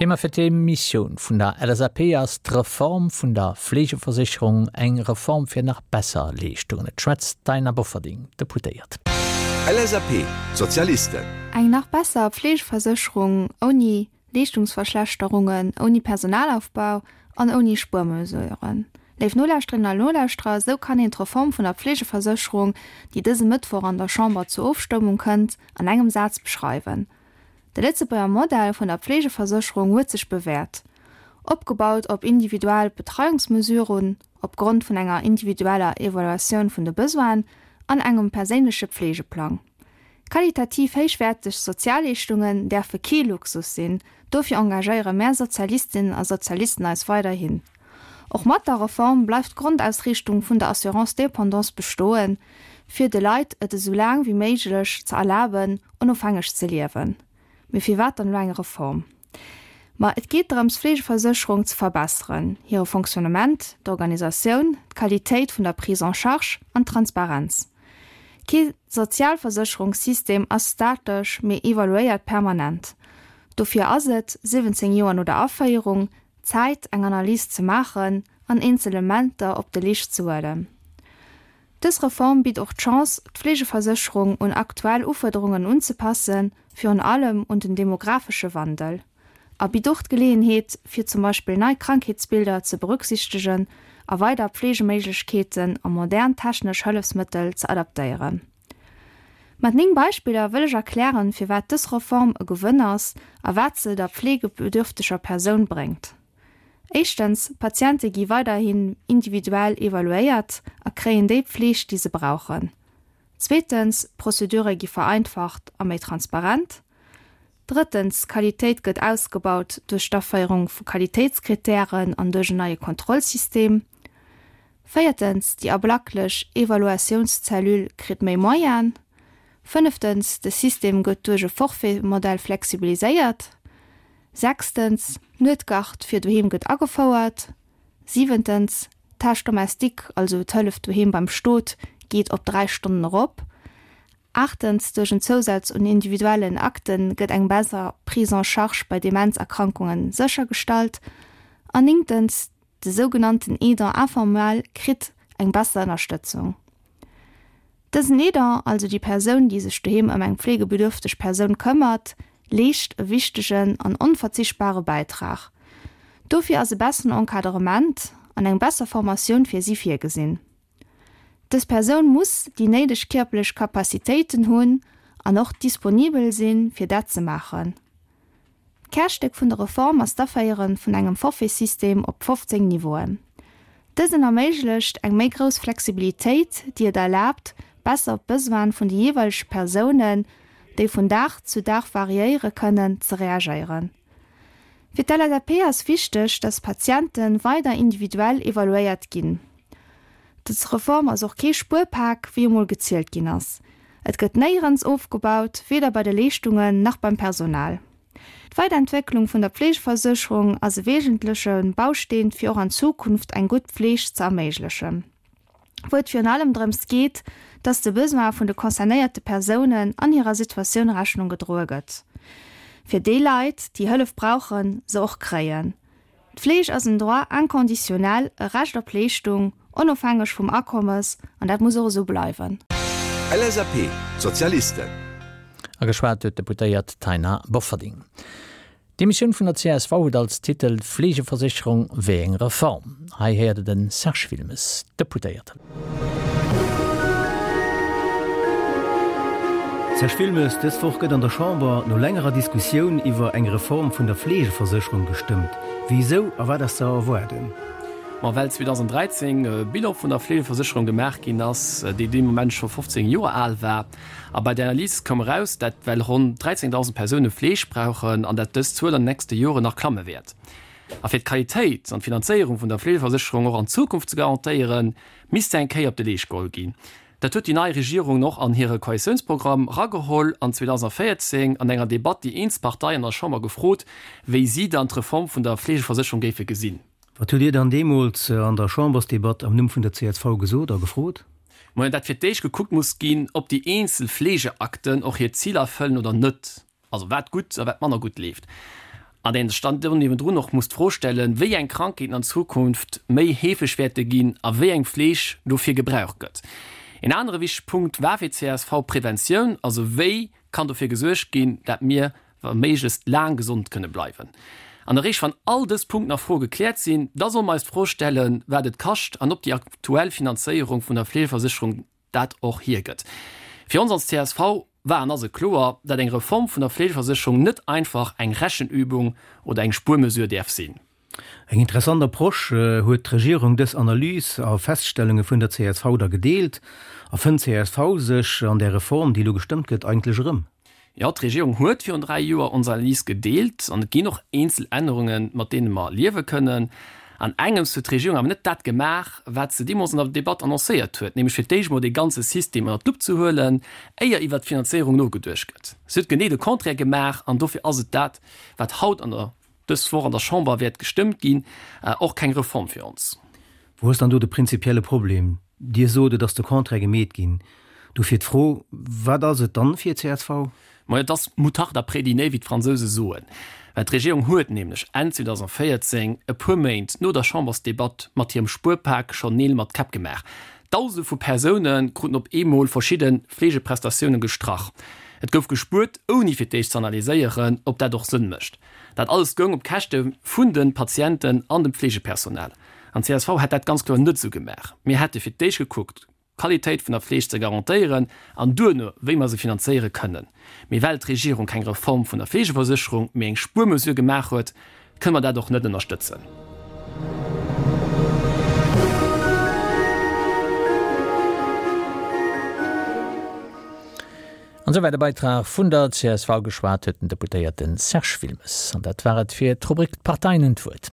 Thema fir d'Emissioun vun der LSAP ass d'Reform vun der Fleegeversécherung, eng Reform fir nach besser Leeschtungen. Et schwätzt d'Taina Bofferding, Deputéiert. LSAP, Sozialisten. Eng nach besser Fleegeversécherung ouni Leeschtungsverschlechterungen, ouni Personalaufbau an ouni Spuermesuren. Léif Nolauschterinnen a Nolauschterer, esou kann een d'Reform vun der Pflegeversécherung, déi dëse Mëttwoch an der Chamber zur Ofstëmmung kënnt, an engem Saz beschreiwen. De Lëtzebuerger Modell vun der Pflegeversécherung huet sech bewäert. Opgebaut op individuell Betreiungsmesuren, opgrond vun enger individueller Evaluatioun vun de Besoinen an engem perséinleche Pflegeplang. Qualitativ héichwäerteg Sozialleeschtungen däerfe kee Luxus sinn, dofir engagéiere mär Sozialistinnen a Sozialisten eis weiderhin. Och mat der Reform bleift d'Grondausriichtung vun der Assurance dépendance bestoen, fir de Leit et esou laang wéi méiglech ze erlaben, onofhängeg ze liewen. Mee firwat dann elo eng Reform? Ma et geet drëms, d'Fleegeversécherung ze verbesseren, hire Fonctionnement, d'Organisatioun, d'Qualitéit vun der Prise en charge an d'Transparenz. Kee Sozialversécherungssystem ass statesch, mee evaluéiert permanent. Dofir ass et, 17 Joer no der Aféierung, Zäit, eng Analys ze maachen an eenzel Elementer op de Leescht ze huelen. Dës Reform bitt och d'Chance, d'Fleegeversécherung un aktuell Ufuerderungen unzepassen, virun allem un den demographesche Wandel, a bitt och d'Geleeënheet, fir zum Beispill nei Krankheetsbilder ze berücksichtegen a weider Pflegeméiglechkeeten a modern technesch Hëllefsmëttel ze adaptéieren. Mat 9 Beispiller wëll ech erklären, firwat dës Reform e Gewënn ass a wat se der pflegebedürfteger Persoun bréngt. Éischtens, d'Patiente gi weiderhin individuell evaluéiert a kréien déi Pfleg, déi se brauchen. Zweetens, d'Prozedure gi vereinfacht a méi transparent. Drëttens, d'Qualitéit gëtt ausgebaut duerch d'Aféierung vu Qualitéitskritären an duerch en neie Kontrollsystem. Véiertens, déi ablacklech Evaluatiounscellule kritt méi Moyenen. Fënneftens, de System gëtt duerch e Forfait-Modell flexibiliséiert. Sechstens, d'Nuetgard fir doheem gëtt agefouert. Siwentens, d'Tâche domestique, also d'Hëllef doheem beim Stot, geet op 3 Stonnen erop. Aachtens, duerch en Zousaz un individuellen Akte gëtt eng besser Prise en charge bei Demenzerkrankunge séchergestallt. An néngtens, de sougenannten Aidant informel kritt eng besser Ënnerstëtzung. Dësen Aidant, also déi Persoun, déi sech doheem ëm eng pflegebedürfteg Persoun këmmert, leescht e wichtegen an onverzichtbare Bäitrag. Dofir ass e besseren Encadrement an eng besser Formatioun fir si virgesinn. Dës Persoun muss déi néideg kierperlech Capacitéiten hunn an och disponibel sinn, fir dat ze maachen. D'Kärstéck vun der Reform ass d'Aféiere vun engem Forfaitsystem op 15 Niveauen. Dësen erméiglecht eng méi grouss Flexibilitéit, déi et erlaabt, besser op d'Besoine vun de jeeweilege Persounen, déi vun Dag zu Dag variéiere kënnen, ze reagéieren. Fir d'LSAP ass wichteg, dass d'Patiente weider individuell evaluéiert ginn. Dës Reform ass och kee Spuerpak, wéi emol gezielt ginn ass. Et gëtt néierens ofgebaut, weder bei de Leeschtungen nach beim Personal. D'Weiderentwécklung vun der Pflegeversécherung ass e wesentleche Bausteen, fir och an Zukunft eng gutt Pfleg ze erméiglechen, wou et virun allem drëms geet, dass de Besoin vun de concernéierte Persounen an hirer Situatioun Rechnung gedroe gëtt, fir déi Leit, déi Hëllef brauchen, se och kréien. D'Fleeg ass en Droit inconditionnel, e Recht op Leeschtung, onofhängeg vum Akommes, an dat muss och esou bleiwen. LSAP, Sozialisten. A geschwat huet d'Deputéiert Taina Bofferding. D'Demissioun vun der csv huet als Titel Fleegeversécherung, wéi eng Reform? Hei héiert Der de Serge Wilmes, Deputéierten. Serge Wilmes, dës Woch gëtt an der Chamber no längerer Diskussioun iwwer eng Reform vun der Fleegeversécherung gestëmmt. Wisou a wat ass ze erwaarden? Ma well 2013 e Bilan vun der Fleegeversécherung gemaach ginn ass, déi dee Moment scho 15 Joer al war. A bei der Analys koum eraus, dat well ronn 13.000 Persoune Fleeg brauchen an dat dës Zuel an den nächste Joren nach klamme wäert. A fir d'Qualitéit an d'Finanzéierung vun der Fleegeversécherung och an Zukunft ze garantéieren, misst se eng Kéier op de Leescht geholl ginn. Dat huet déi nei Regierung och an hire Koalitiounsprogramm rageholl an 2014 an enger Debatt déi eenz Parteien an der Chamber gefrot, wéi si dann d'Reform vun der Fleegeversécherung géife gesinn. Wat hutt Dir dann deemools an der Chambersdebatt am Numm vun der csv gesot a gefrot? Majo, dat fir d'éischt gekuckt muss ginn, ob déi eenzel Fleegeakten och hir Ziler erfëllen oder net. Also wat gutt a wat manner gutt leeft. An een sech dann do niewendrun och muss d'Fro stellen, wéi eng Krankheeten an Zukunft méi heefeg wäerte ginn a wéi eng Fleeg dofir gebraucht gëtt. Een anere wichtege Punkt war fir d'CSV d'Preventioun, also wéi kann dofir gesuergt ginn, dat mir wa méiglechst laang gesond kënne bleiwen. An eréischt wann all dës Punkten a Froe gekläert sinn, da solle mer eis d'Fro stellen, wat et kascht an ob déi aktuell Finanzéierung vun der Fleegeversécherung dat och hiergëtt. Fir ons als csv war an ass et kloer, dat eng Reform vun der Fleegeversécherung net einfach eng Rechenübung oder eng Spuermesure däerf sinn. Eng interessant Approche. Huet d'Regierung dës Analys a Feststellunge vun der csv da gedeelt? A fënnt csv sech an där Reform, déi elo gestëmmt gëtt, eigentlech erëm? Jo, d'Regierung huet virun 3 Joer ons Analys gedeelt an et ginn och eenzel Ännerungen, mat deene mer liewe kënnen. An engems huet d'Regierung awer net dat gemaach, wat se deemools an der Debatt annoncéiert huet, nämlech fir d'éischt emol dee ganze System ënnert d'Lupp ze huelen, éier iwwert d'Finanzéierung nogeduecht gëtt. Se huet genee de Contraire gemaach an dofir ass et dat, wat haut an der dës Woch an der Chamber wäert gestëmmt ginn, och keng Reform fir ons. Wou ass dann do de prinzipielle Problem? Dir sot, et ass de Contraire gemeet ginn. Dofir d'Fro, Wat ass et dann fir csv? Majo, et ass Moutarde après dîner, wéi d'Fransouse soen. Well d'Regierung huet nämlech Enn 2014, e puer Méint no der Chambersdebatt, mat hirem Spuerpak schonn Neel mat Käpp gemaach. Dausende vu Persoune kruten op eemol verschidde Fleegeprestatioune gestrach. Et gouf gespuert, ouni fir d'éischt z'analyséieren, ob dat och Sënn mécht. Dat alles goung op Käschte vun de Patienten an dem Fleegepersonal. An csv hätt dat ganz kloer net esou gemaach. Mir hätte fir d'éischt gekuckt, d'Qualitéit vun der Fleeg ze garantéieren an duerno, wéi mer se finanzéiere kënnen. Mee well d'Regierung keng Reform vun der Fleegeversécherung, mee eng Spuermesure gemaach huet, kënne mer dat och net ënnerstëtzen. An esouwäit e Beitrag vun der csv. Geschwat huet den Deputéierte Serge Wilmes. An dat war et fir d'Rubrik D'Parteien hunn d'Wuert.